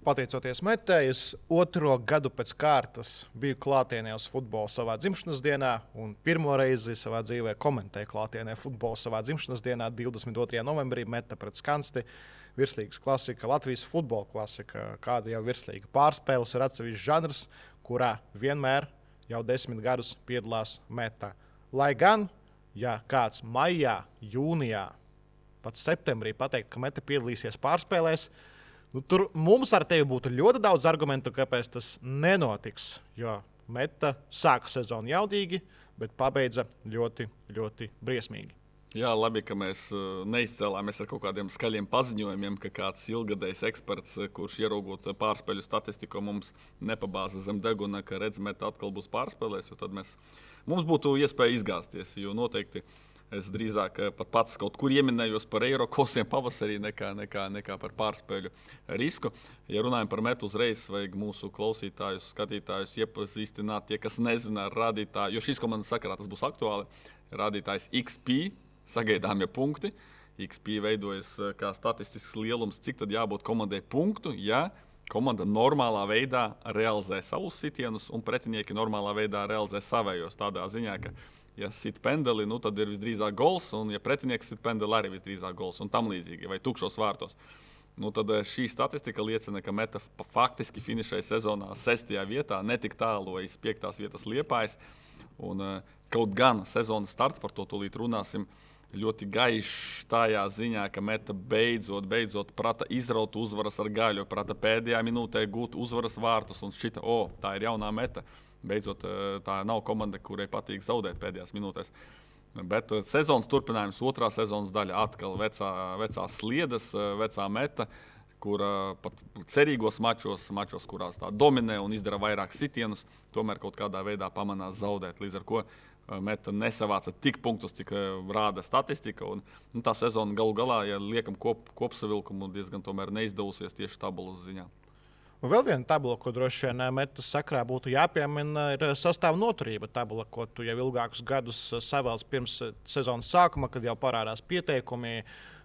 Pateicoties Metei, es otro gadu pēc kārtas biju klātienē uz futbolu savā dzimšanas dienā, un pirmo reizi savā dzīvē komentēju klātienē futbolu savā dzimšanas dienā, 22. novembrī, Meta pret Skansti. Virslīgas klasika, Latvijas futbola klasika, kāda jau virslīga pārspēles ir atsevišķs žanrs, kurā vienmēr jau 10 gadus piedalās Meta. Lai gan, ja kāds maijā, jūnijā, pat septembrī pateikt, ka Meta piedalīsies pārspēlēs, tur mums ar tevi būtu ļoti daudz argumentu, kāpēc tas nenotiks. Jo Meta sāka sezonu jaudīgi, bet pabeidza ļoti, ļoti briesmīgi. Jā, labi, ka mēs neizcēlāmies ar kaut kādiem skaļiem paziņojumiem, ka kāds ilgadējs eksperts, kurš ieraugot pārspēļu statistiku, mums nepabāza zem deguna, ka redz, Meta atkal būs pārspēlēs, jo tad mums būtu iespēja izgāzties, jo noteikti es drīzāk pat pats kaut kur ieminējos par eiro kosiem pavasarī nekā par pārspēļu risku. Ja runājam par Metu, uzreiz vajag mūsu klausītājus, skatītājus iepazīstināt, tie, kas nezina rādītāju, jo šīs komandas sakarā tas būs aktuāli, rādītājs XP, sagaidāmie punkti. XP veidojas kā statistisks lielums, cik tad jābūt komandai punktu, ja komanda normālā veidā realizē savus sitienus un pretinieki normālā veidā realizē savējos. Tādā ziņā, ka ja sit pendeli, tad ir visdrīzāk gols, un ja pretinieks sit pendeli, arī visdrīzāk gols, un tam līdzīgi, vai tukšos vārtos. Tad šī statistika liecina, ka Meta faktiski finišēja sezonā 6. vietā, netik tālu aiz 5. vietas Liepājas. Un kaut gan sezonas starts, par to tūlīt runāsim, ļoti gaišs tajā ziņā, ka Meta beidzot prata izraut uzvaras ar gaļu, prata pēdējā minūtē gūt uzvaras vārtus un šķita, tā ir jaunā Meta. Beidzot, tā nav komanda, kurai patīk zaudēt pēdējās minūtēs. Bet sezonas turpinājums, otrā sezonas daļa atkal vecās sliedas, vecā Meta, kura pat cerīgos mačos, kurās tā dominē un izdara vairāk sitienus, tomēr kaut kādā veidā pamanās zaudēt. Līdz ar ko Meta nesavāca tik punktus, cik rāda statistika. Un tā sezona galu galā, ja liekam kopsavilkumu, diezgan tomēr neizdevusies tieši tabulas ziņā. Un vēl viena tabula, ko droši vien Metas sakrā būtu jāpiemina, ir sastāvā noturība tabula, ko tu jau ilgākus gadus savēlsi pirms sezonas sākuma, kad jau parādās pieteikumi.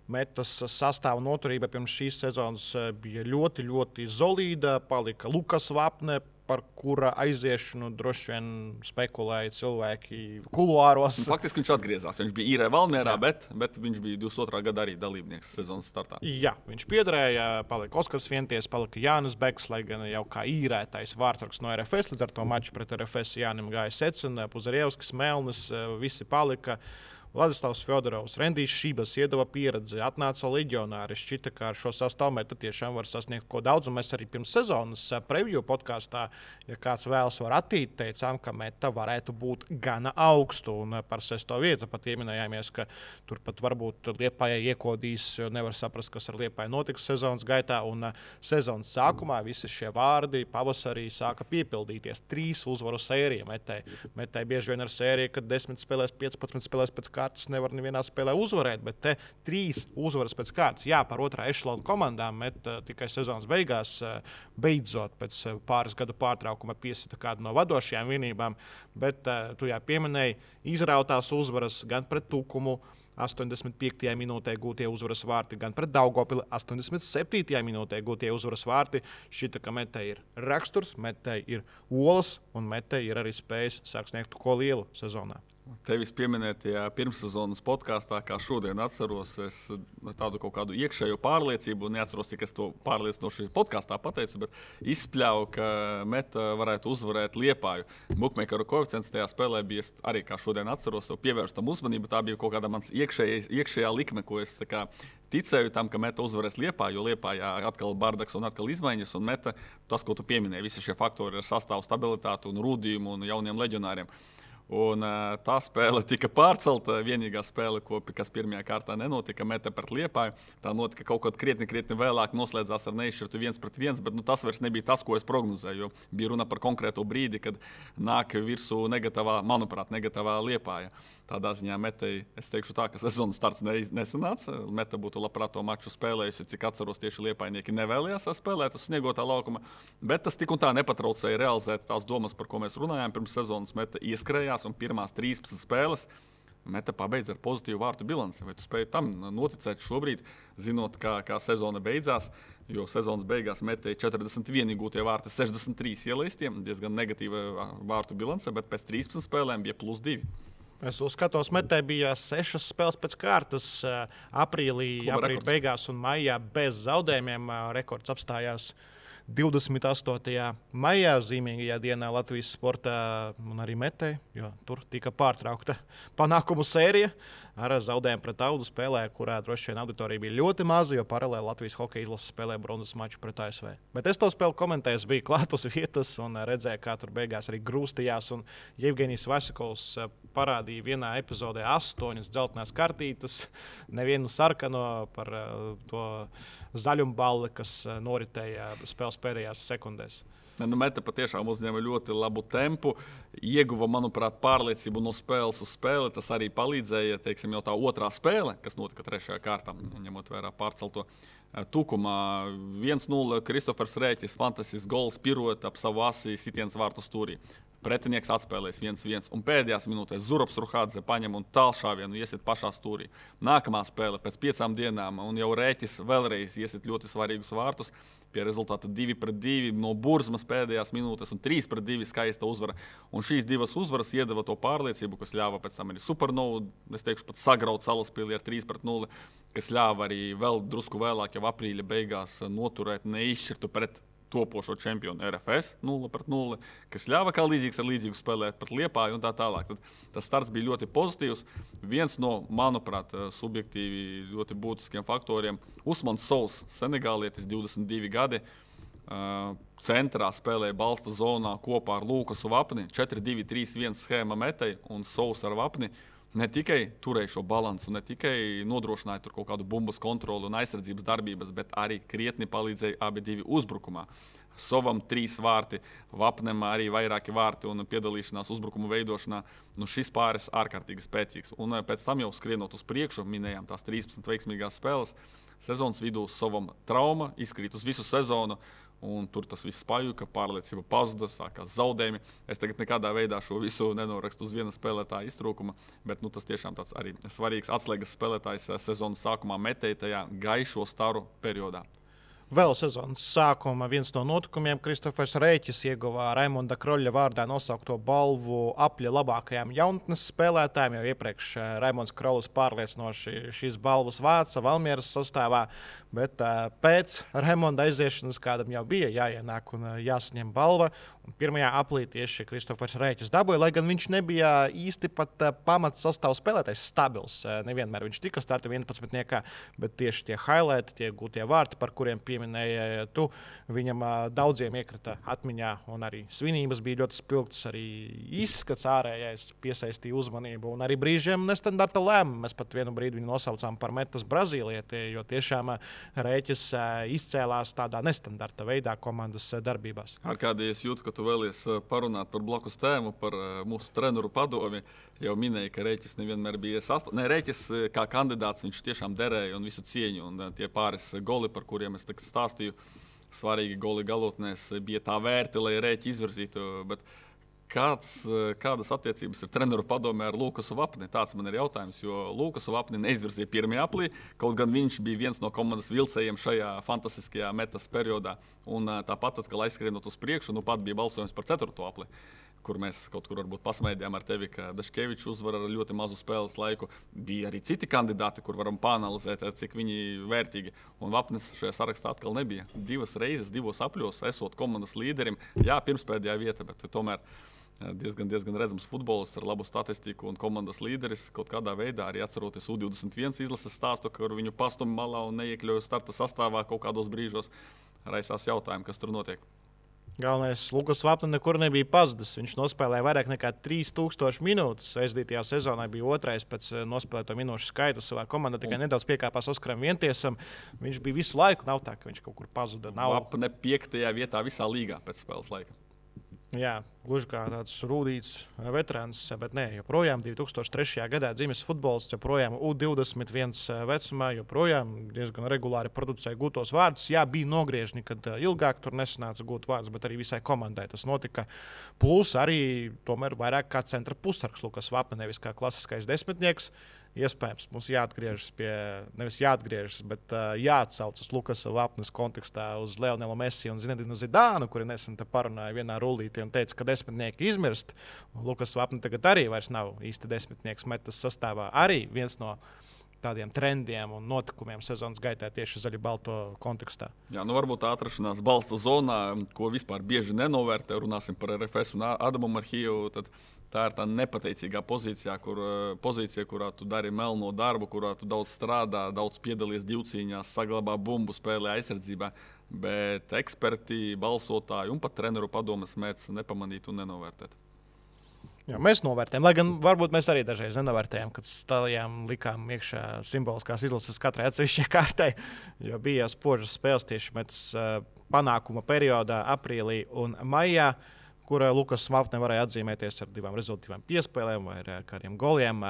Metas sastāvā noturība pirms šīs sezonas bija ļoti, ļoti solīda. Palika Lukas Vapne, par kura aiziešanu droši vien spekulēja cilvēki kuluāros. Faktiski viņš atgriezās. Viņš bija īrē Valmierā, bet viņš bija 22. gada arī dalībnieks sezonas startā. Jā, viņš piederēja, palika Oskars Vienties, palika Jānis Beks, lai gan jau kā īrētais vārdsargs no RFS. Līdz ar to maču pret RFS Jānim gāja Secina, Puzarievskis, Melnis, visi palika. Vladislavs Fjodorovs, Rendijs Šības iedeva pieredzi, atnāca leģionāri. Šķita, ka ar šo sastāvu Meta tiešām var sasniegt ko daudz. Un mēs arī pirms sezonas preview podkāstā, ja kāds vēlas var attīt, teicām, ka Meta varētu būt gana augstu. Un par 6. vietu pat ieminējāmies, ka turpat varbūt Liepājai iekodīs, jo nevar saprast, kas ar Liepāju notiks sezonas gaitā. Un sezonas sākumā visi šie vārdi pavasarī sāka piepildīties. 3 uzvaru sērija Metai. Metai bieži vien ar sēriju, kad 10 spēlēs, 15 spēlēs pēc kārtas nevar nevienā spēlē uzvarēt, bet te 3 uzvaras pēc kārtas. Jā, par otrā ešalona komandām Meta tikai sezonas beigās beidzot pēc pāris gadu pārtraukuma piesita kādu no vadošajām vienībām, bet tu jau pieminēji izrautās uzvaras gan pret Tukumu, 85. minūtē gūtie uzvaras vārti, gan pret Daugavpili 87. minūtē gūtie uzvaras vārti. Šķita, ka Metai ir raksturs, Metai ir olas un Metai ir arī spējas sākt sniegt ko lielu sezonā. Tevis pieminētajā pirmssezonas podkāstā, kā šodien atceros, es tādu kaut kādu iekšējo pārliecību, neatceros, cik es to pārliecinoši podkāstā pateicu, bet izspļauju, ka Meta varētu uzvarēt Liepāju. Bukmeikeru koeficients tajā spēlē bija arī, kā šodien atceros, pievērst tam uzmanību. Tā bija kaut kāda mans iekšējā likme, ko es ticēju tam, ka Meta uzvarēs Liepāju, jo Liepājā atkal bardaks un atkal izmaiņas, un Meta, tas, ko tu pieminēji, visi šie faktori ar sastāvu stabilitāti un rūdījumu un jauniem leģionāriem. Un tā spēle tika pārcelta. Vienīgā spēle, kas pirmajā kārtā nenotika, Meta pret Liepāju, tā notika kaut kad krietni vēlāk, noslēdzās ar neizšķirtu 1-1, bet tas vairs nebija tas, ko es prognozēju, jo bija runa par konkrētu brīdi, kad nāk virsū negatīvā Liepāja. Tādā ziņā Metai, es teikšu tā, ka sezonas starts nesanāca. Meta būtu labprāt to maču spēlējusi, cik atceros, tieši Liepājnieki nevēlējās spēlēt uz sniegotā laukuma, bet tas tik un tā nepatraucēja realizēt tās domas, par ko mēs runājām pirms sezonas. Meta ieskrējās un pirmās 13 spēles Meta pabeidz ar pozitīvu vārtu bilanci. Vai tu spēj tam noticēt šobrīd, zinot, kā sezona beidzās? Jo sezonas beigās Metei 41 iegūtie vārti, 63 ielaistiem, diezgan negatīva vārtu bilance, bet pēc 13 spēlēm bija +2. Es uzskatos, Metei bija 6 spēles pēc kārtas. Aprīlī beigās un maijā bez zaudējumiem. Rekords apstājās 28. maijā, zīmīgajā dienā Latvijas sportā un arī Metei, jo tur tika pārtraukta panākumu sērija ar zaudējumu pret Audu spēlē, kurā droši vien auditorija bija ļoti maza, jo paralēli Latvijas hokeja izlase spēlēja bronzas maču pret ASV. Bet es to spēli komentēju, biju klāt uz vietas un redzēju, kā tur beigās arī grūstījās. Un Jevgenijs Vasikovs parādīja vienā epizodē 8 dzeltenās kartītes, nevienu sarkano par to zaļumballi, kas noritēja spēles pēdējās sekundēs. Meta patiešām uzņēma ļoti labu tempu, ieguva, manuprāt, pārliecību no spēles uz spēli. Tas arī palīdzēja, teiksim, jau tā otrā spēle, kas notika 3. kārtā, ņemot vērā pārcelto Tukumā. 1-0 Kristofers Rēķis, fantastisks gols, piruet ap savu asi, sitiens vārtu stūrī. Pretinieks atspēlēs 1-1, un pēdējās minūtēs Zurabs Ruhādze paņem un tālšāvienu iesit pašā stūrī. Nākamā spēle pēc 5 dienām, un jau Rēķis vēlreiz iesit ļoti svarīgus vārtus. Pie rezultāta 2-2 no Burzmas pēdējās minūtes un 3-2 skaista uzvara. Un šīs divas uzvaras iedeva to pārliecību, kas ļāva pēc tam arī Supernovu, es teikšu, pat sagraut Salaspili ar 3-0, kas ļāva arī vēl drusku vēlāk, jau aprīļa beigās noturēt neizšķirtu pret topošo čempionu RFS 0-0, kas ļāva kā līdzīgs ar līdzīgu spēlēt pret Liepāju un tā tālāk. Tad tas starts bija ļoti pozitīvs. Viens no, manuprāt, subjektīvi ļoti būtiskiem faktoriem - Usmans Souls, senegālietis, 22 gadi. Centrā spēlēja balsta zonā kopā ar Lukasu Vapni, 4-2-3-1 schēma Metei un Souls ar Vapni. Ne tikai turēja šo balansu, ne tikai nodrošināja tur kaut kādu bumbas kontroli un aizsardzības darbības, bet arī krietni palīdzēja abi divi uzbrukumā. Sovam 3 vārti, Vapnem arī vairāki vārti un piedalīšanās uzbrukumu veidošanā. Šis pāris ārkārtīgi spēcīgs. Un pēc tam jau skrienot uz priekšu, minējām tās 13 veiksmīgās spēles. Sezonas vidū Sovam trauma, izkrīt uz visu sezonu. Un tur tas viss pajuka, pārliecība pazuda, sākās zaudējumi. Es tagad nekādā veidā šo visu nenorakstu uz viena spēlētāja iztrūkuma, bet tas tiešām tāds arī svarīgs atslēgas spēlētājs sezonas sākumā Metei tajā gaišo staru periodā. Vēl sezonas sākuma viens no notikumiem Kristofers Rēķis ieguva Raimonda Kroļa vārdā nosaukto balvu apļa labākajām jaunatnes spēlētājiem. Jau iepriekš Raimonds Krolis pārliecinoši šīs balvas vāca Valmieras sastāvā, bet pēc Raimonda aiziešanas kādam jau bija jāienāk un jāsaņem balva. Un 1. aprīlī tieši Kristofers Rēķis dabūja, lai gan viņš nebija īsti pat pamats sastāvs spēlētājs stabils. Nevienmēr viņš tika starta 11, bet tieši tie highlighti, tie gūtie vārti, par kuriem pieminēja tu, viņam daudziem iekrita atmiņā, un arī svinības bija ļoti spilgtas, arī izskats ārējais piesaistīja uzmanību, un arī brīžiem nestandarta lēmumi. Mēs pat vienu brīdi viņu nosaucām par metas brazīlieti, jo tiešām Rēķis izcēlās tādā nestandarta veidā komandas darbībās. Arkādī, es jūtu, ka tu vēlies parunāt par blakus tēmu, par mūsu treneru padomi. Jau minēja, ka Rēķis nevienmēr bija Rēķis kā kandidāts, viņš tiešām derēja un visu cieņu. Un tie pāris goli, par kuriem es stāstīju, svarīgi goli galotnēs, bija tā vērti, lai Rēķi izvirzītu. Bet kādas attiecības ir treneru padomē ar Lukasu Vapni? Tāds man ir jautājums, jo Lukasu Vapni neizvirzīja 1. aprīlī, kaut gan viņš bija viens no komandas vilcējiem šajā fantastiskajā metas periodā. Un tāpat, kad aizskrienot uz priekšu, pat bija balsojums par 4. aprīli, kur mēs kaut kur varbūt pasmaidījām ar tevi, ka Daškevičs uzvar ar ļoti mazu spēles laiku. Bija arī citi kandidāti, kur varam pāanalizēt, cik viņi vērtīgi. Un Vapnis šajā sarakstā atkal nebija. 2 reizes, 2 apļos, esot komandas līderim. Jā, pirmspēdējā vieta, bet tomēr diezgan redzams futbolists ar labu statistiku un komandas līderis. Kaut kādā veidā arī atceroties U21 izlases stāstu, kur viņu pastumi malā un neiekļauja starta sastāvā kaut kādos brīžos. Raisās jautājumi, kas tur notiek. Galvenais, Lukas Vapni nekur nebija pazudis. Viņš nospēlēja vairāk nekā 3000 minūtes. Aizdītajā sezonā bija 2. pēc nospēlēto minūšu skaita savā komandā. Tikai nedaudz piekāpās Oskaram Vientiesam. Viņš bija visu laiku. Nav tā, ka viņš kaut kur pazuda. Vapni 5. vietā visā līgā pēc spēles laika. Jā, gluži kā tāds rūtīts veterāns, bet nē, joprojām 2003. gadā dzimis futbolists, joprojām U21 vecumā, joprojām diezgan regulāri producēja gūtos vārdus. Jā, bija nogriežņi, kad ilgāk tur nesanāca gūt vārdus, bet arī visai komandai tas notika. Plus arī tomēr vairāk kā centra pusargs Lukas Vapne, nevis kā klasiskais desmitnieks. Iespējams, mums jāatgriežas pie, nevis jāatgriežas, bet jāatcaucas Lukasa Vapnes kontekstā uz Leonelu Messi un Zinedinu Zidānu, kuri nesen te parunāja vienā rullītī un teica, ka desmitnieki izmirst. Lukas Vapne tagad arī vairs nav īsti desmitnieks metas sastāvā. Arī viens no tādiem trendiem un notikumiem sezonas gaitā tieši zaļi-balto kontekstā. Jā, varbūt tā atrašanās balsta zonā, ko vispār bieži nenovērtē, runāsim par RFS un Adamu Marhiju. Tā ir tā nepateicīgā pozīcija, kurā tu dari melno darbu, kurā tu daudz strādā, daudz piedalies divcīņās, saglabā bumbu, spēlē aizsardzībā. Bet eksperti, balsotāji un pat treneru padomes mēdz nepamanīt un nenovērtēt. Jā, mēs novērtējam, lai gan varbūt mēs arī dažreiz nenovērtējam, kad stājām likām iekšā simboliskās izlases katrai atsevišķai kārtai, jo bija spožas spēles tieši metas panākuma periodā, aprīlī un maijā, kur Lukas Vapne varēja atzīmēties ar 2 rezultātīvām piespēlēm vai ar kādiem goliem.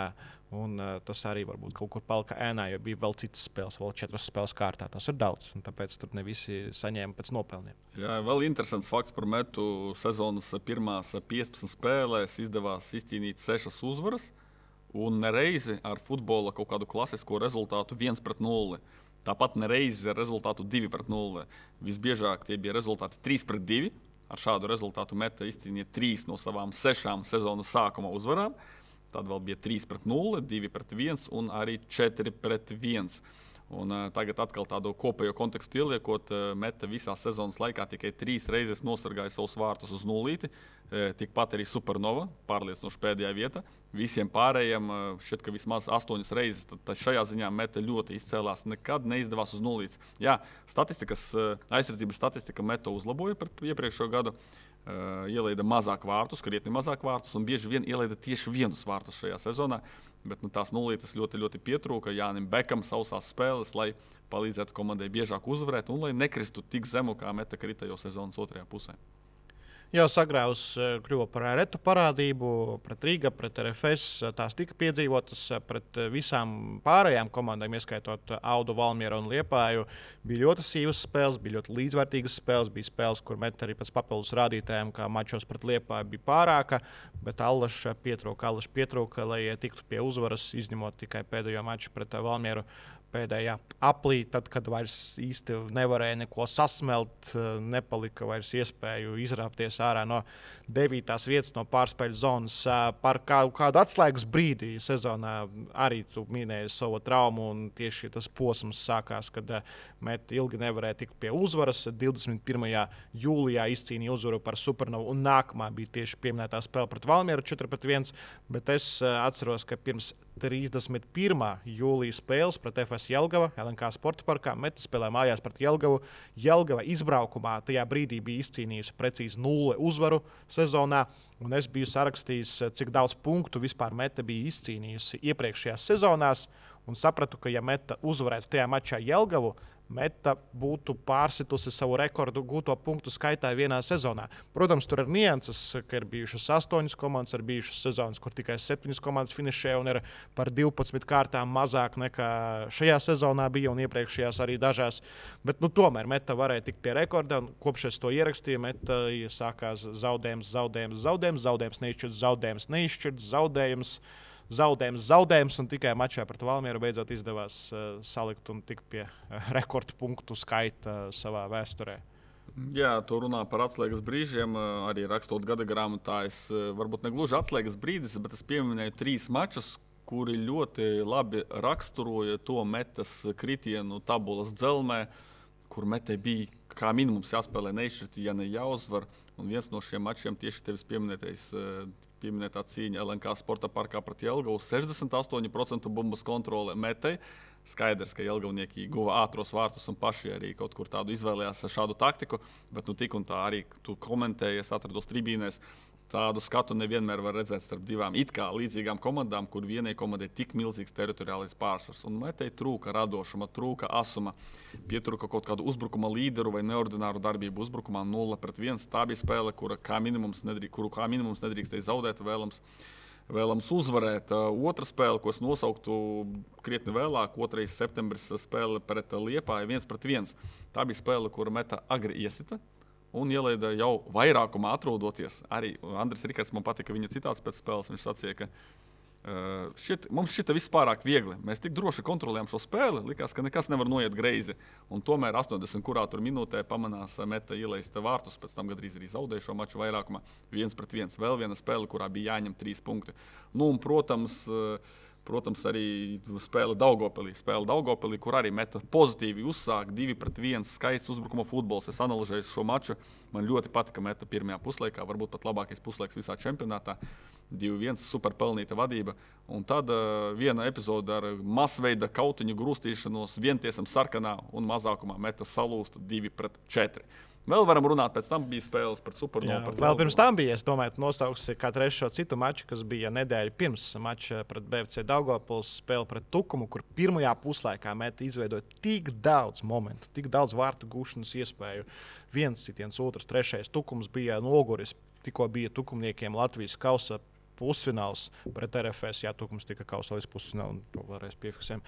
Un tas arī varbūt kaut kur palika ēnā, jo bija vēl citas spēles, vēl 4 spēles kārtā. Tas ir daudz, un tāpēc tur ne visi saņēma pēc nopelniem. Jā, vēl interesants fakts par metu. Sezonas pirmās 15 spēlēs izdevās izcīnīt 6 uzvaras, un nereizi ar futbola kaut kādu klasisko rezultātu 1-0. Tāpat nereizi ar rezultātu 2-0. Visbiežāk tie bija rezultāti 3-2. Ar šādu rezultātu meta izcīnīja 3 no savām 6 sezonas sākuma uzvarām. Tad vēl bija 3-0, 2-1 un arī 4-1. Un tagad atkal tādu kopējo kontekstu ieliekot, meta visā sezonas laikā tikai 3 reizes nosargāja savus vārtus uz nulīti. Tikpat arī Supernova, pārliecinoši pēdējā vieta. Visiem pārējiem šķiet, ka vismaz 8 reizes. Tad šajā ziņā meta ļoti izcēlās. Nekad neizdevās uz nulītes. Jā, aizsardzības statistika meta uzlaboja pret iepriekšējo gadu. Ielaida mazāk vārtus, krietni mazāk vārtus, un bieži vien ielaida tieši 1 vārtus šajā sezonā. Bet tās nulītes ļoti, ļoti pietrūka Jānim Bekam sausās spēles, lai palīdzētu komandai biežāk uzvarēt un lai nekristu tik zemu, kā meta krita jau sezonas otrajā pusē. Jau sagrāvus kļuva par retu parādību pret Rīgu, pret RFS. Tās tika piedzīvotas pret visām pārējām komandām, ieskaitot Audu, Valmieru un Liepāju. Bija ļoti sīvas spēles, bija ļoti līdzvērtīgas spēles. Bija spēles, kur meta arī pēc papildus rādītājiem, kā mačos pret Liepāju bija pārāka, bet Allaša pietrūka, lai tiktu pie uzvaras, izņemot tikai pēdējo maču pret Valmieru. Pēdējā aplī, tad, kad vairs īsti nevarēja neko sasmelt, nepalika vairs iespēju izrāpties ārā no 9. vietas, no pārspēļu zonas. Par kādu atslēgas brīdi sezonā arī tu minēji savu traumu, un tieši tas posms sākās, kad meta ilgi nevarēja tikt pie uzvaras. 21. jūlijā izcīnīja uzvaru par Supernovu, un nākamā bija tieši pieminētā spēle pret Valmieru 4-1, bet es atceros, ka pirms 31. jūlijas spēles pret FS Jelgava, LNK Sporta parkā. Meta spēlē mājās pret Jelgavu. Jelgava izbraukumā tajā brīdī bija izcīnījusi precīzi 0 uzvaru sezonā. Un es biju sarakstījis, cik daudz punktu vispār meta bija izcīnījusi iepriekšējās sezonās. Un sapratu, ka ja meta uzvarētu tajā mačā Jelgavu, meta būtu pārsitusi savu rekordu gūto punktu skaitā vienā sezonā. Protams, tur ir nianses, ka ir bijušas 8 komandas, ir bijušas sezonas, kur tikai 7 komandas finišē un ir par 12 kārtām mazāk nekā šajā sezonā bija un iepriekšējās arī dažās. Bet tomēr meta varēja tikt pie rekorda, un kopš es to ierakstīju, meta sākās zaudējums, zaudējums, un tikai mačā pret Valmieru beidzot izdevās salikt un tikt pie rekordu punktu skaita savā vēsturē. Jā, tu runā par atslēgas brīžiem, arī rakstot gada grāmatā. Varbūt ne gluži atslēgas brīdis, bet es pieminēju 3 mačus, kuri ļoti labi raksturoja to metas kritienu tabulas dzelmē, kur metai bija kā minimums jāspēlē neizšķirti, ja ne jāuzvar. Un viens no šiem mačiem tieši tevis pieminētā cīņa LNK Sporta parkā pret Jelgavu. 68% bumbas kontrole metai. Skaidrs, ka jelgavnieki guva ātros vārtus un paši arī kaut kur tādu izvēlējās šādu taktiku, bet tik un tā arī tu komentēji, es atrados tribīnēs. Tādu skatu nevienmēr var redzēt starp divām it kā līdzīgām komandām, kur vienai komandai tik milzīgs teritoriālais pārsvars. Un Metei trūka radošuma, trūka asuma, pietrūka kaut kādu uzbrukuma līderu vai neordināru darbību uzbrukumā 0-1. Tā bija spēle, kuru kā minimums nedrīkstēja zaudēt, vēlams uzvarēt. Otra spēle, ko es nosauktu krietni vēlāk, 2. septembris spēle pret Liepāju 1-1. Tā bija spēle, kura Meta agri iesita. Un ielaida jau vairākumā atrodoties. Arī Andris Rikards man patika viņa citāts pēc spēles. Viņš sacīja, ka mums šita viss pārāk viegli. Mēs tik droši kontrolējam šo spēli, likās, ka nekas nevar noiet greizi. Un tomēr 80 kurā tur minūtē pamanās Meta ielaista vārtus, pēc tam gandrīz arī zaudēja šo maču vairākumā 1-1. Vēl viena spēle, kurā bija jāņem 3 punkti. Nu, un, protams, arī spēle Daugavpilī, kur arī Meta pozitīvi uzsāk 2-1 skaists uzbrukuma futbols. Es analizēju šo maču. Man ļoti patika Meta pirmajā puslaikā, varbūt pat labākais puslaiks visā čempionātā. 2-1 super pelnīta vadība. Un tad viena epizode ar masveida kautiņu grūstīšanos vientiesam sarkanā un mazākumā Meta salūsta 2-4. Vēl varam runāt, pēc tam bija spēles pret Supernovu. Vēl pirms tam bija, es domāju, nosauksi kā trešo citu maču, kas bija nedēļa pirms mača pret BFC Daugavpils, spēle pret Tukumu, kur pirmajā puslaikā Meta izveidoja tik daudz momentu, tik daudz vārtu gūšanas iespēju. Viens sitiens, otrs, trešais. Tukums bija noguris, tikko bija tukumniekiem Latvijas kausa pusfināls pret RFS. Jā, Tukums tika kausa līdz pusfinālam, to vēlreiz piefiksējam.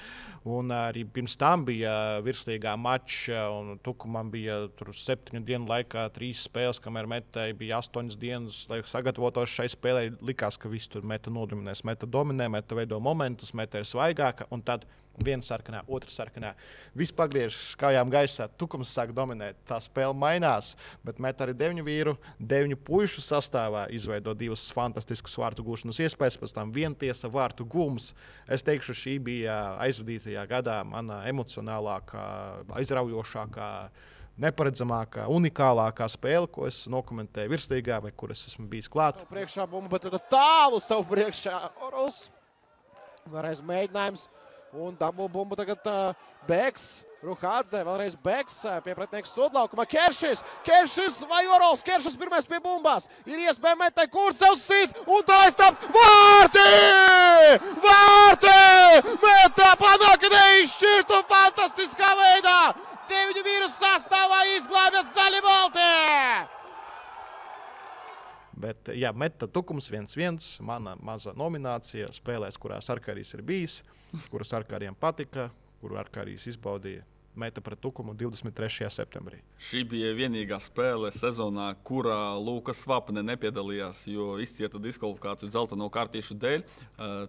Un arī pirms tam bija virslīgā mača, un Tukumam bija 7 dienu laikā 3 spēles, kamēr Metai bija 8 dienas, lai sagatavotos šai spēlē. Likās, ka viss tur Meta nodominēs. Meta dominē, Meta veido momentus, Meta ir svaigāka, un tad viena sarkanā, otra sarkanā. Viss pagriežas kājām gaisā, Tukums sāk dominēt. Tā spēle mainās, bet Meta arī 9 vīru, 9 puišu sastāvā izveido 2 fantastiskas vārtu gūšanas iespējas, pēc tam vientiesa vārtu gūms. Es teikšu, šī bija aizvadītajā gadā mana emocionālākā, aizraujošākā, neparedzamākā, unikālākā spēle, ko es nokomentēju virslīgā vai kur es esmu bijis klāt. Priekšā bumba, bet tālu savu priekšā Oros. Vēlreiz mēģinājums. Un dabū bumbu tagad Beks, Ruhādze, vēlreiz Beks, pie pretinieka sodlaukuma. Keršis vai Orols, Keršis pirmais pie bumbās. Ir iespēja Metai Kurcevs sīt, un tā aizstāps. Vārti! Meta panāk neizšķirtu fantastiskā veidā. 9 vīru sastāvā izglābjas zaļi balti! Bet, jā, Meta Tukums 1-1, mana maza nominācija spēlēs, kurās Arkārijas ir bijis, kuras Arkārijam patika, kuru Arkārijas izbaudīja. Meta pret Tukumu 23. septembrī. Šī bija vienīgā spēle sezonā, kurā Lukas Svapne nepiedalījās, jo izcieta diskvalifikāciju dzelteno kartīšu dēļ.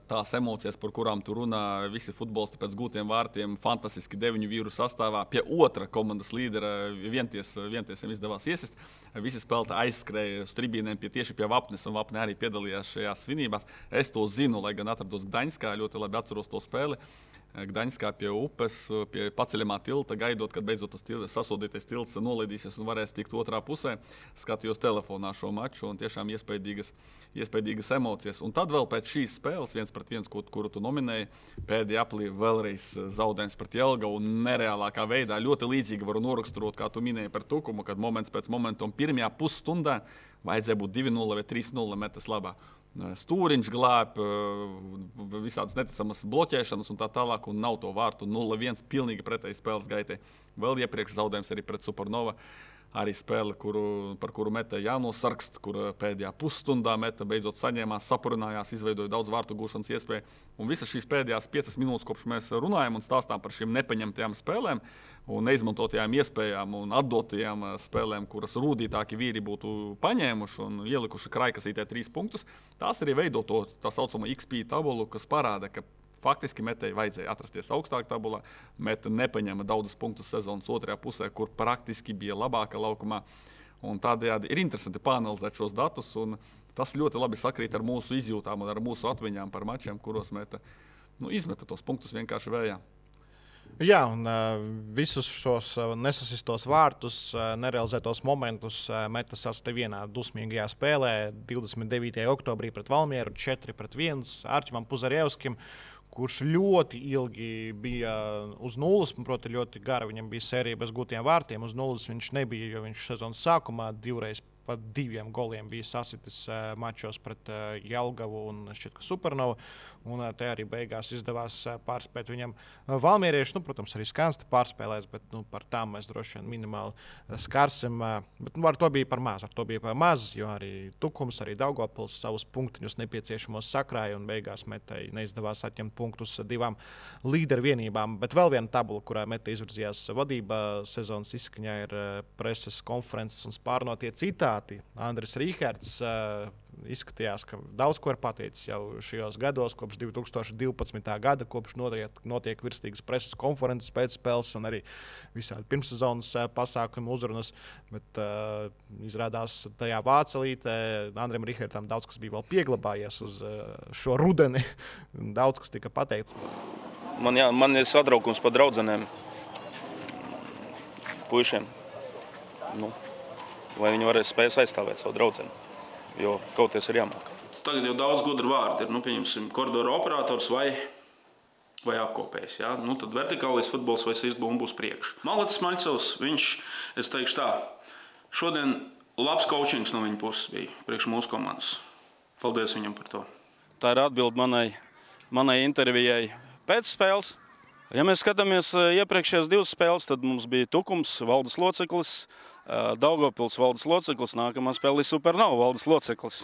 Tās emocijas, par kurām tu runā, visi futbolisti pēc gūtiem vārtiem, fantastiski 9 vīru sastāvā. Pie otra komandas līdera vientiesiem izdevās iesist. Visi spēlētāji aizskrēja uz tribīnēm tieši pie Vapnes, un Vapne arī piedalījās šajās svinībās. Es to zinu, lai gan atrados Gdaņskā, ļoti labi atceros to spēli. Gdaņskā pie upes, pie paceļamā tilta, gaidot, kad beidzot tas sasodītais tilts nolaidīsies un varēs tikt otrā pusē. Skatījos telefonā šo maču un tiešām iespaidīgas emocijas. Un tad vēl pēc šīs spēles 1-1, kuru tu nominēji, pēdējā aplī vēlreiz zaudējums pret Jelgavu un nereālākā veidā. Ļoti līdzīgi varu noraksturot, kā tu minēji par Tukumu, kad moments pēc momenta un pirmajā pusstundā vajadzēja būt 2-0 vai 3-0 Metas labā. Stūriņš glāb, visādas neticamas bloķēšanas un tā tālāk, un nav to vārtu 0-1, pilnīgi pretēji spēles gaitai. Vēl iepriekš zaudējums arī pret Supernova, arī spēle, par kuru Meta jānosarkst, kur pēdējā pusstundā Meta beidzot saņēmās, sapurinājās, izveidoja daudz vārtu gūšanas iespēju. Un visas šīs pēdējās 5 minūtes, kopš mēs runājam un stāstām par šīm nepaņemtajām spēlēm un neizmantotajām iespējām un atdotajām spēlēm, kuras rūdītāki vīri būtu paņēmuši un ielikuši kraikasītē 3 punktus, tās arī veido to tā saucamo XP tabulu, kas parāda, ka faktiski Metai vajadzēja atrasties augstāk tabulā. Meta nepaņēma daudzus punktus sezonas otrajā pusē, kur praktiski bija labāka laukumā. Un tādējādi ir interesanti pāanalizēt šos datus, un tas ļoti labi sakrīt ar mūsu izjūtām un ar mūsu atmiņām par mačiem, kuros Meta izmeta tos punktus vienkārši vējā. Jā, un visus šos nesasistos vārtus, nerealizētos momentus Meta sastāv vienā dusmīgajā spēlē 29. oktobrī pret Valmieru 4-1 Arķimam Puzarevskim, kurš ļoti ilgi bija uz nulles, proti ļoti gara. Viņam bija sērija bez gūtiem vārtiem. Uz nulles viņš nebija, jo viņš sezonas sākumā 2 reizes pa 2 goliem bija sasitis mačos pret Jelgavu un šķiet, ka Supernovu. Un te arī beigās izdevās pārspēt viņam valmierieši. Protams, arī Skansti pārspēlēs, bet par tām mēs droši vien minimāli skarsim. Bet ar to bija par maz, jo arī Tukums, arī Daugavpils savus punktiņus nepieciešamos sakrāja un beigās Metei neizdevās atņemt punktus 2 līderu vienībām. Bet vēl viena tabula, kurā Mete izvirzījās vadībā sezonas izskaņā, ir preses konferences un spārnotie citāti. Andris Rīherts izskatījās, ka daudz ko ir pateicis jau šajos gados, kopš 2012. gada, kopš notiek virstīgas preses konferences pēcspēles un arī visādi pirmssezonas pasākumu uzrunas. Bet izrādās tajā vācelītē Andrim Rīhertam daudz kas bija vēl pieglabājies uz šo rudeni. Daudz kas tika pateikts. Man ir satraukums par draudzenēm, puišiem. Vai viņi varēs spēs aizstāvēt savu draudzeni, jo kaut kas ir jāmāk. Tagad jau daudz gudru vārdu ir, pieņemsim, koridoru operators vai apkopējs. Ja? Tad vertikālais futbols vai sistbūm būs priekš. Malacis Maļcovs, es teikšu tā, šodien labs coachings no viņa puses bija priekš mūsu komandas. Paldies viņam par to. Tā ir atbilde manai intervijai pēc spēles. Ja mēs skatāmies iepriekšējās 2 spēles, tad mums bija Tukums, valdes loceklis, Daugavpils valdes loceklis, nākamā spēle ir Supernova valdes loceklis.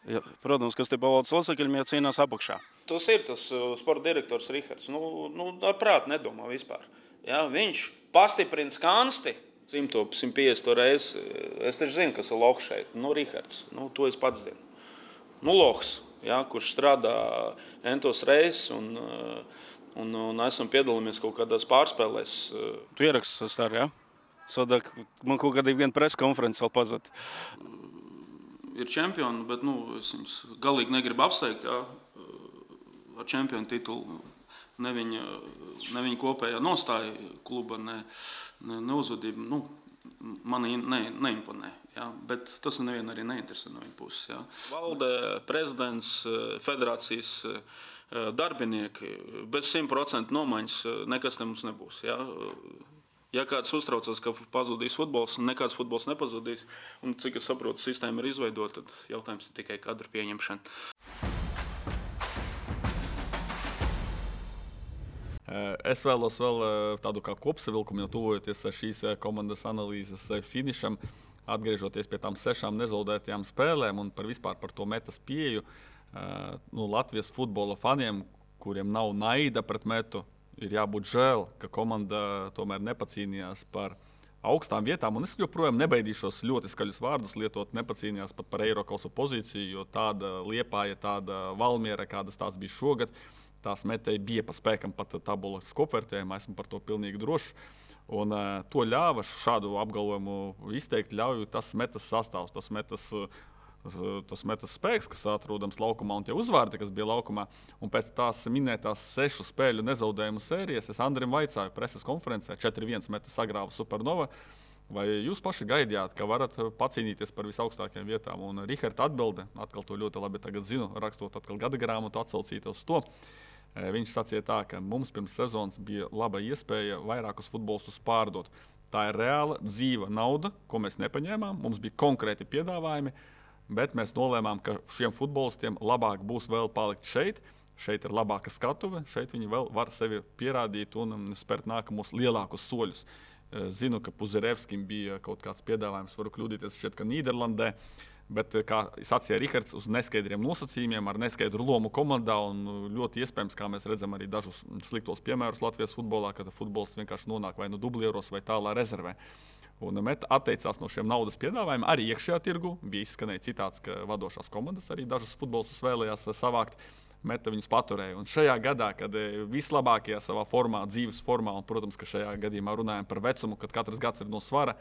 Ja, protams, kas te pa valdes locekļiem cīnās apakšā. Tas ir tas sporta direktors Rīherts. Ar prātu nedomā vispār. Ja, viņš pastiprina Skansti 100-150 reizi. Es taču zinu, kas ir Lohs šeit. Rīherts. To es pats zinu. Lohs, ja, kurš strādā entos reizes un esam piedalāmies kaut kādās pārspēlēs. Tu ieraksti stāri, ja? Sodak, man kaut kādā viena presa konferences vēl pazad. Ir čempioni, bet es viņus galīgi negribu apsteigt, ja, ar čempionu titulu. Ne viņa kopējā nostāja kluba, ne uzvedība. Mani neimponē, ja, bet tas nevienu arī neinteresē no viņa puses. Ja. Valde, prezidents, federācijas darbinieki, bez 100% nomaiņas nekas te mums nebūs. Ja. Ja kāds uztraucas, ka pazudīs futbols, nekāds futbols nepazudīs, un cik es saprotu, sistēma ir izveidota, tad jautājums ir tikai kadru pieņemšana. Es vēlos vēl tādu kā kopsavilkumu, jau tuvojoties šīs komandas analīzes finišam, atgriežoties pie tām 6 nezaudētajām spēlēm un vispār par to Metas pieeju. Latvijas futbola faniem, kuriem nav naida pret Metu, ir jābūt žēl, ka komanda tomēr nepacīnījās par augstām vietām. Un es joprojām nebaidīšos ļoti skaļus vārdus lietot, nepacīnījās pat par Eirokausu pozīciju, jo tāda Liepāja, tāda Valmiera, kādas tās bija šogad, tās Metei bija pa spēkam pat tabulas kopvērtējumā, esmu par to pilnīgi drošs. Un to ļāva šādu apgalvojumu izteikt, ļauj tas Metas sastāvs, tas Metas spēks, kas atrodams laukumā un tie uzvārdi, kas bija laukumā. Un pēc tās minētās 6 spēļu nezaudējumu sērijas es Andrim vaicāju preses konferencē, 4-1 Metas sagrāva Supernova, vai jūs paši gaidījāt, ka varat pacīnīties par visaugstākajām vietām? Un Rīherta atbilde, atkal to ļoti labi tagad zinu, rakstot atkal gada grāmatu, atsaucīt uz to. Viņš sacīja tā, ka mums pirms sezonas bija laba iespēja vairākus futbolistus pārdot. Tā ir reāla, dzīva nauda, ko mēs nepaņēmām, mums bija konkrēti piedāvājumi, bet mēs nolēmām, ka šiem futbolistiem labāk būs vēl palikt šeit. Šeit ir labāka skatuve, šeit viņi vēl var sevi pierādīt un spērt nākamos lielākus soļus. Zinu, ka Puzerevskim bija kaut kāds piedāvājums, varu kļūdīties šķiet, ka Nīderlandē, bet, kā sacīja Rīherts, uz neskaidriem nosacījumiem, ar neskaidru lomu komandā un ļoti iespējams, kā mēs redzam arī dažus sliktos piemērus Latvijas futbolā, kad futbols vienkārši nonāk vai dublieros vai tālā rezervē. Un Meta atteicās no šiem naudas piedāvājumiem. Arī iekšējā tirgu bija izskanēja citāts, ka vadošās komandas arī dažus futbolistus vēlējās savākt. Meta viņus paturēja. Un šajā gadā, kad vislabākajā savā formā, dzīves formā, un, protams, ka šajā gadījumā runājam par vecumu, kad katrs gads ir no svara,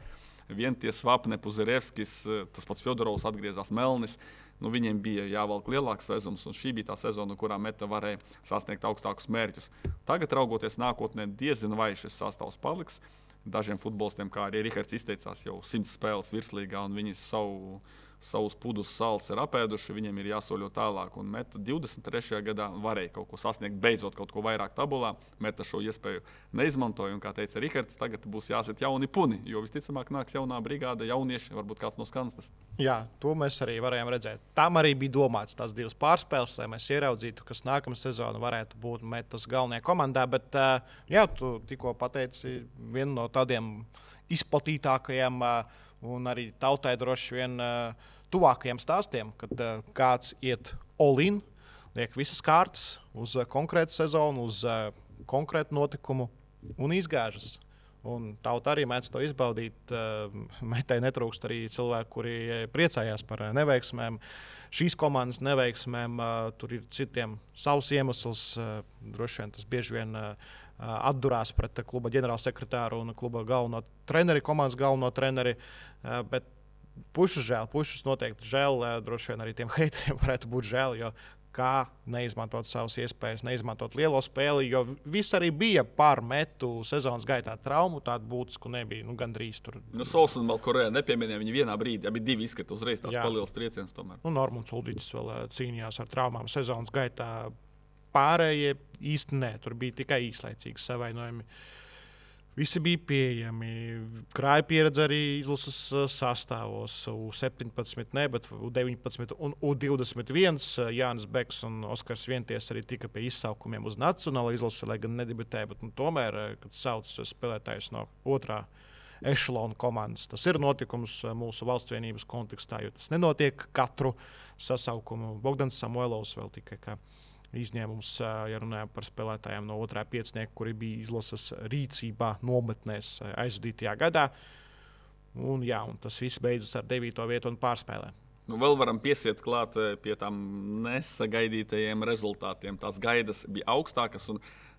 vien tie Svapne, Puzerevskis, tas pats Fjodorovs atgriezās Melnis, viņiem bija jāvelk lielāks vezums, un šī bija tā sezona, kurā Meta varēja sasniegt augstākus mērķus. Tagad, raugoties nākotnē, diezin vai šis sastāvs paliks. Dažiem futbolistiem, kā arī Rīherts izteicās, jau 100 spēles virslīgā, un viņi savu savus pudus sāls ir apēduši, viņiem ir jāsoļo tālāk. Un Meta 23. gadā varēja kaut ko sasniegt, beidzot kaut ko vairāk tabulā. Meta šo iespēju neizmantoja, un, kā teica Rihards, tagad būs jāsit jauni puni, jo visticamāk nāks jaunā brigāde, jaunieši, varbūt kāds no Skanstas. Jā, to mēs arī varējām redzēt. Tam arī bija domāts tās divas pārspēles, lai mēs ieraudzītu, kas nākamā sezona varētu būt Metas galvenajā komandā. Bet, jā, tu tikko pateici vienu no tādiem izplatītākajiem un arī tautai droši vien tuvākajiem stāstiem, kad kāds iet all-in, liek visas kārtas uz konkrētu sezonu, uz konkrētu notikumu un izgāžas. Un tauta arī mēdz to izbaudīt. Metai netrūkst arī cilvēki, kuri priecājās par neveiksmēm. Šīs komandas neveiksmēm tur ir citiem savs iemesls. Droši vien tas bieži vien atdurās pret kluba ģenerālsekretāru un kluba galveno treneri, komandas galveno treneri. Bet pušus žēl, pušus noteikti žēl. Droši vien arī tiem heiteriem varētu būt žēl, jo kā neizmantot savas iespējas, neizmantot lielo spēli, jo viss arī bija par Metu sezonas gaitā traumu, tādu būtisku nebija, gandrīz tur. Sols un Malkorē nepieminēja viņu vienā brīdī, abi divi izkrita uzreiz tās palielas trieciens tomēr. Normons Ulģiķis vēl cīnījās ar traumām sezonas gaitā. Pārējie īsti nē, tur bija tikai īslaicīgi savainojumi. Visi bija pieejami. Krāja pieredze arī izlases sastāvos. U17, ne, bet U19 un U21. Jānis Beks un Oskars Vienties arī tika pie izsaukumiem uz nacionālo izlasi, lai gan nedebitēja. Bet, tomēr, kad sauc spēlētājus no otrā ešalona komandas, tas ir notikums mūsu valstsvienības kontekstā, jo tas nenotiek katru sasaukumu. Bogdans Samuelovs vēl tikai kā izņēmums, ja runājam par spēlētājiem no otrā piecinieka, kuri bija izlases rīcībā nometnēs aizvadītajā gadā. Un tas viss beidzas ar 9. vietu un pārspēlēm. Vēl varam piesiet klāt pie tām nesagaidītajiem rezultātiem. Tās gaidas bija augstākas.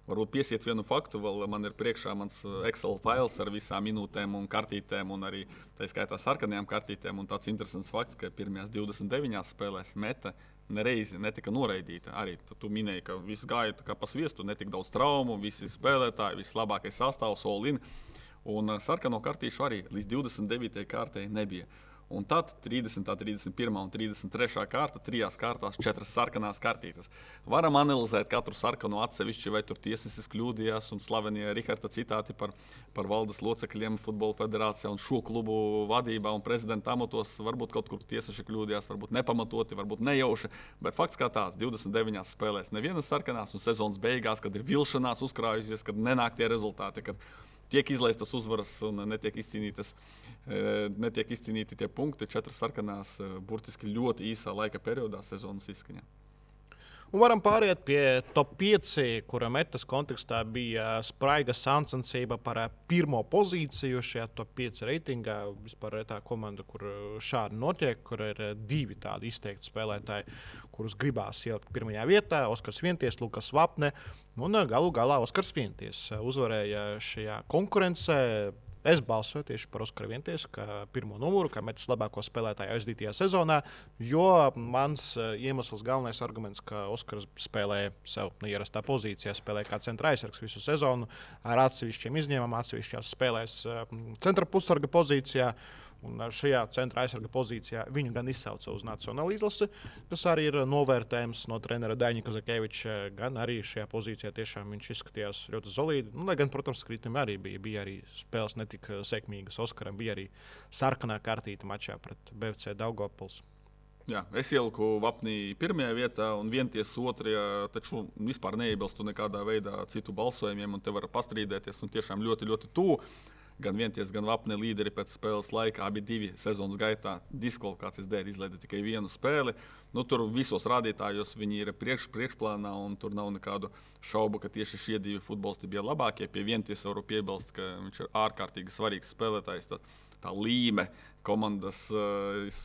Varbūt piesiet vienu faktu, vēl man ir priekšā mans Excel fails ar visām minūtēm un kartītēm, un arī tā skaitā sarkanajām kartītēm. Un tāds interesants fakts, ka pirmajās 29 spēlēs Meta nereizi netika noraidīta. Arī tu minēji, ka viss gāja kā pa sviestu, netika daudz traumu, visi spēlētāji, viss labākais sastāvs, all-in. Un sarkano kartīšu arī līdz 29. kārtai nebija. Un tad 30., 31. un 33. kārta, 3 kārtās 4 sarkanās kartītes. Varam analizēt katru sarkanu atsevišķi, vai tur tiesnesis kļūdījās, un slavenie Riharda citāti par valdes locekļiem Futbola federācijā un šo klubu vadībā un prezidenta amatos. Varbūt kaut kur tiesneši kļūdījās, varbūt nepamatoti, varbūt nejauši. Bet fakts kā tāds, 29 spēlēs nevienas sarkanās, un sezonas beigās, kad ir vilšanās uzkrājusies, kad nenāk tie rezultāti, kad tiek izlaistas uzvaras un netiek izcīnīti tie punkti, 4 sarkanās burtiski ļoti īsā laika periodā sezonas izskaņā. Un varam pāriet pie top 5, kura Metas kontekstā bija spraiga sacensība par pirmo pozīciju šajā top 5 reitingā. Vispār tā komanda, kur šādi notiek, kur ir 2 tādi izteikti spēlētāji, kurus gribās ielikt pirmajā vietā. Oskars Vienties, Lukas Vapne un galu galā Oskars Vienties uzvarēja šajā konkurencē. Es balsoju tieši par Oskaru Vientiesu, kā pirmo numuru, kā Metas labāko spēlētāju aizdītajā sezonā, jo mans iemesls, galvenais arguments, ka Oskars spēlēja sev neierastā pozīcijā, spēlēja kā centra aizsargs visu sezonu, ar atsevišķiem izņēmumiem, atsevišķās spēlēs centra pussarga pozīcijā. Un šajā centra aizsarga pozīcijā viņu gan izsauca uz nacionālo izlasi, kas arī ir novērtējums no trenera Daņa Kazakeviča. Gan arī šajā pozīcijā tiešām viņš izskatījās ļoti solīdi. Lai gan, protams, kritumi arī bija arī spēles netika sekmīgas. Oskaram bija arī sarkanā kartīte mačā pret BFC Daugavpils. Jā, es ieliku Vapnī pirmajā vietā un Vienties otrajā, taču vispār neiebilstu nekādā veidā citu balsojumiem, un te var pastrīdēties un tiešām ļoti, ļoti tuvu. Gan Vienties, gan Vapne līderi pēc spēles laika, abi divi sezonas gaitā diskvalifikācijas dēļ izlaida tikai vienu spēli. Tur visos rādītājos viņi ir priekšplānā, un tur nav nekādu šaubu, ka tieši šie divi futbolisti bija labākie. Pie Vienties varu piebilst, ka viņš ir ārkārtīgi svarīgs spēlētājs. Tā līme komandas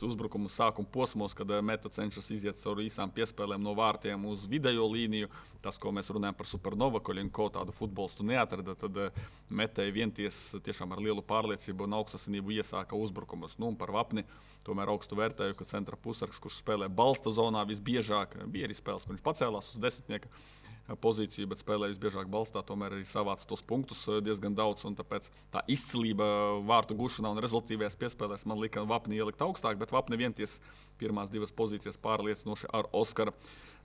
uzbrukumu sākuma posmos, kad Meta cenšas iziet cauri īsām piespēlēm no vārtiem uz vidējo līniju. Tas, ko mēs runājam par Supernova, ko tādu futbolistu neatrada, tad Metai Vienties tiešām ar lielu pārliecību un augstasinību iesāka uzbrukumus. Un par Vapni tomēr augstu vērtēju, ka centra pusargs, kurš spēlē balsta zonā visbiežāk, bija arī spēles, kur viņš pacēlās uz desmitnieka. pozīciju, bet spēlējis biežāk balstā, tomēr arī savāca tos punktus diezgan daudz. Tāpēc tā izcilība vārtu gušanā un rezultātīvajās piespēlēs man lika Vapni ielikt augstāk, bet Vapni vienties pirmās divas pozīcijas pārliecinoši ar Oskara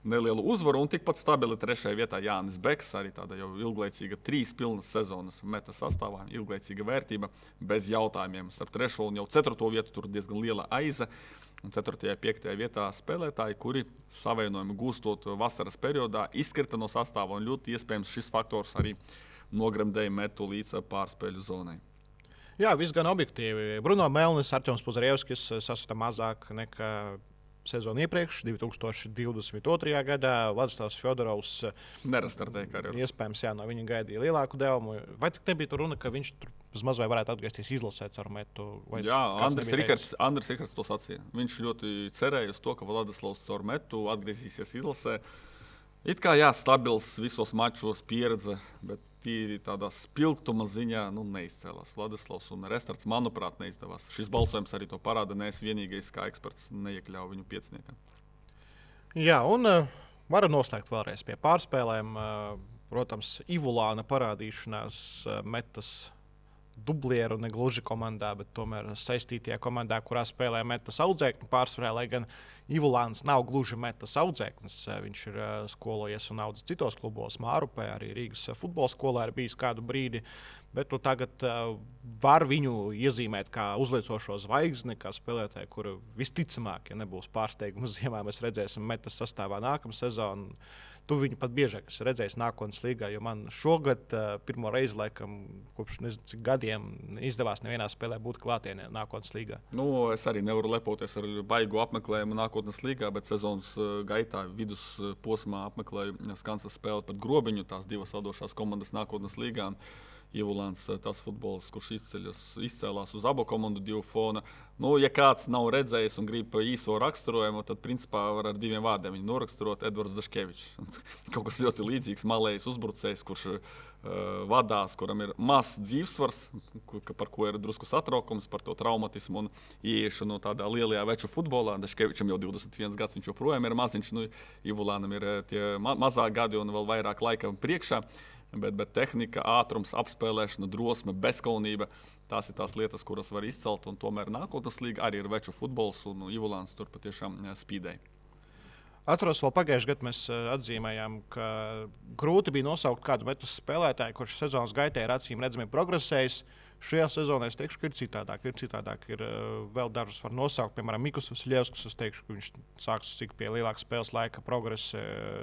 nelielu uzvaru. Un tikpat stabili 3. vietā Jānis Beks, arī tāda jau ilglaicīga 3 pilnas sezonas meta sastāvā, ilglaicīga vērtība, bez jautājumiem. Starp 3. un jau 4. vietu tur diezgan liela aiza. Un 4. un 5. vietā spēlētāji, kuri savainojumu gūstot vasaras periodā, izkrita no sastāva. Un ļoti iespējams šis faktors arī nogremdēja metu līdz pārspēļu zonai. Jā, viss gan objektīvi. Bruno Melnis, Artjoms Puzarevskis sasita mazāk nekā sezonu iepriekš, 2022. gadā. Vladislavs Fjodorovs Nerastartēja karjeru. Iespējams, jā, no viņa gaidīja lielāku devumu. Vai tik nebija tur runa, ka viņš tur maz vai varētu atgriezties izlasēt ar metu? Jā, Andris Rikards to sacīja. Viņš ļoti cerēja uz to, ka Vladislavs caur metu atgriezīsies izlasē. It kā jā, stabils visos mačos pieredze, bet tīri tādā spilgtuma ziņā neizcēlās. Vladislavs un Restarts, manuprāt, neizdevās. Šis balsojums arī to parāda. Nees vienīgais, kā eksperts, neiekļāva viņu pieciniekā. Jā, un varu noslēgt vēlreiz pie pārspēlēm. Protams, Ivulāna parādīšanās metas dublieru negluži komandā, bet tomēr saistītajā komandā, kurā spēlē metas audzēkņu pārspēlē, lai gan Ivulāns nav gluži metas audzēknis. Viņš ir skolojies un audzis citos klubos, Mārupē, arī Rīgas futbola skolā ir bijis kādu brīdi. Bet tagad var viņu iezīmēt kā uzliecošo zvaigzni, kā spēlētāju, kuru visticamāk, ja nebūs pārsteigums ziemā, mēs redzēsim metas sastāvā nākamā sezona. Tu viņu pat biežāk esi redzējis nākotnes līgā, jo man šogad pirmo reizi, laikam, kopš nezinu, cik gadiem izdevās nevienā spēlē būt klātienē nākotnes līgā. Es arī nevaru lepoties ar baigu apmeklējumu nākotnes līgā, bet sezonas gaitā vidusposmā apmeklēju Skansas spēli pret Grobiņu, tās divas vadošās komandas nākotnes līgā. Ivulāns, tas futbols, kurš izcēlās uz abu komandu divu fona. Ja kāds nav redzējis un grib īso raksturojumu, tad principā var ar 2 vārdiem viņu noraksturot: Edvards Daškevičs. Kaut kas ļoti līdzīgs, malējs uzbrucējs, kurš vadās, kuram ir mazs dzīvesvars, par ko ir drusku satraukums, par to traumatismu un ieiešanu tādā lielajā veču futbolā. Daškevičam jau 21 gads, viņš joprojām ir maziņš. Ivulānam ir tie mazāk gadi un vēl vairāk laika priekšā. Bet tehnika, ātrums, apspēlēšana, drosme, bezkaunība - tās ir tās lietas, kuras var izcelt. Un tomēr nākotnes līga arī ir veču futbols, un Ivulāns tur patiešām spīdēja. Atceros, vēl pagājušajā gadā mēs atzīmējām, ka grūti bija nosaukt kādu metas spēlētāju, kurš sezonas gaitā ir acīm redzami progresējis. Šajā sezonā es teikšu, ka ir citādāk. Ir vēl dažus var nosaukt, piemēram, Mikus Vasiljevskis. Es teikšu, ka viņš sāks cik pie lielāka spēles laika progresa.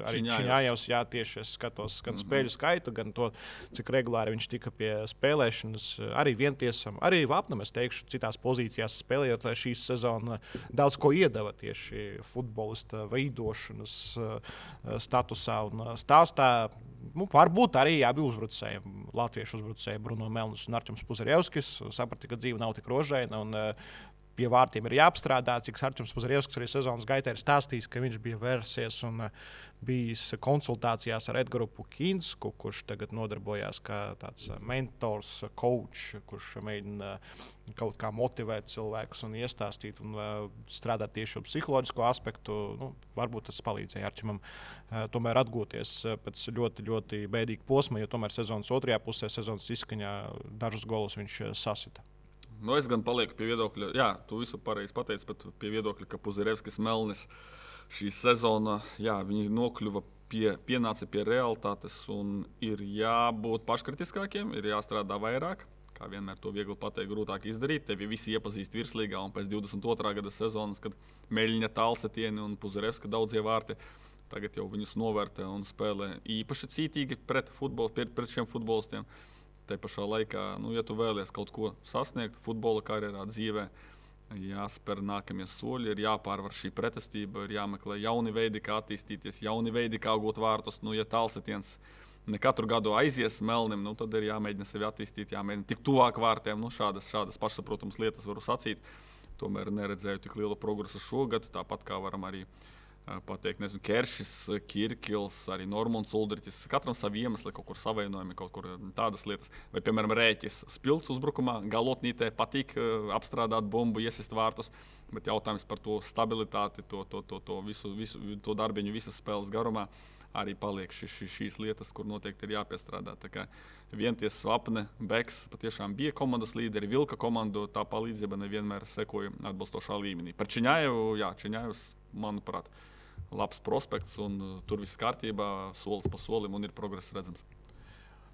Arī Čiņājevs, jā, tieši es skatos gan spēļu skaitu, gan to, cik regulāri viņš tika pie spēlēšanas. Arī Vientiesam, arī Vapnam, es teikšu, citās pozīcijās spēlējot, lai šī sezona daudz ko iedeva tieši futbolista veidošanas statusā un stāstā. Varbūt arī abi uzbrucēji, latviešu uzbrucēji Bruno Melnis un Artjoms Puzarevskis, saprata, ka dzīve nav tik rožaina un pie vārtiem ir jāapstrādā. Cik Artjoms Puzarevskis arī sezonas gaitā ir stāstījis, ka viņš bija vērsies un bijis konsultācijās ar Edgaru Pukinsku, kurš tagad nodarbojās kā tāds mentors, coach, kurš mēģina kaut kā motivēt cilvēkus un iestāstīt un strādāt tieši uz psiholoģisko aspektu. Varbūt tas palīdzēja Arčimam tomēr atgūties pēc ļoti, ļoti bēdīga posma, jo tomēr sezonas otrajā pusē, sezonas izskaņā dažus golus viņš sasita. Es gan palieku pie viedokļa, jā, tu visu pareizi pateici, bet pie viedokļa, ka Puzarevskis, Melnis šī sezona, jā, viņi nokļuva pienāca pie realitātes un ir jābūt paškritiskākiem, ir jāstrādā vairāk. Kā vienmēr to viegli pateikt, grūtāk izdarīt. Tevi visi iepazīst virslīgā un pēc 22. gada sezonas, kad Meļņa Tālsetieni un Puzarevska daudzie vārti, tagad jau viņus novērtē un spēlē īpaši cītīgi pret šiem futbolistiem. Te pašā laikā, ja tu vēlies kaut ko sasniegt futbola karjerā, dzīvē, jāspēr nākamie soļi, ir jāpārvar šī pretestība, ir jāmeklē jauni veidi, kā attīstīties, jauni veidi, kā gūt vārtus. Ja Tālsetiens ne katru gadu aizies Melnim, tad ir jāmēģina sevi attīstīt, jāmēģina tik tuvāk vārtiem. Šādas pašsaprotamas lietas varu sacīt. Tomēr neredzēju tik lielu progresu šogad, tāpat kā varam arī pateikt, Keršis, Kirkils, arī Normons Uldriķis. Katram savi iemesli, kaut kur savainojumi, kaut kur tādas lietas. Vai, piemēram, Rēķis spilgts uzbrukumā, galotnītē patīk apstrādāt bumbu, iesist vārtus, bet jautājums par to stabilitāti, to visu darbiņu visas spēles garumā. arī paliek šīs lietas, kur noteikti ir jāpiestrādā. Tā kā Vienties, Svapne, Beks patiešām bija komandas līderi, vilka komandu, tā palīdzība nevienmēr sekoja atbilstošā līmenī. Par Čiņājevu, Čiņājevs, manuprāt, labs prospekts, un tur viss kārtībā, solis pa solim, un ir progress redzams.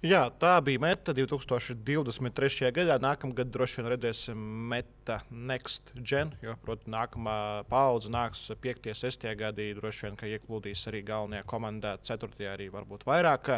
Jā, tā bija meta 2023. gadā. Nākamgad droši vien redzēsim meta Next Gen, jo, protams, nākamā paudze nāks 5. un 6. gadī. Droši vien, ka ieplūdīs arī galvenajā komandā, 4. arī varbūt vairāk.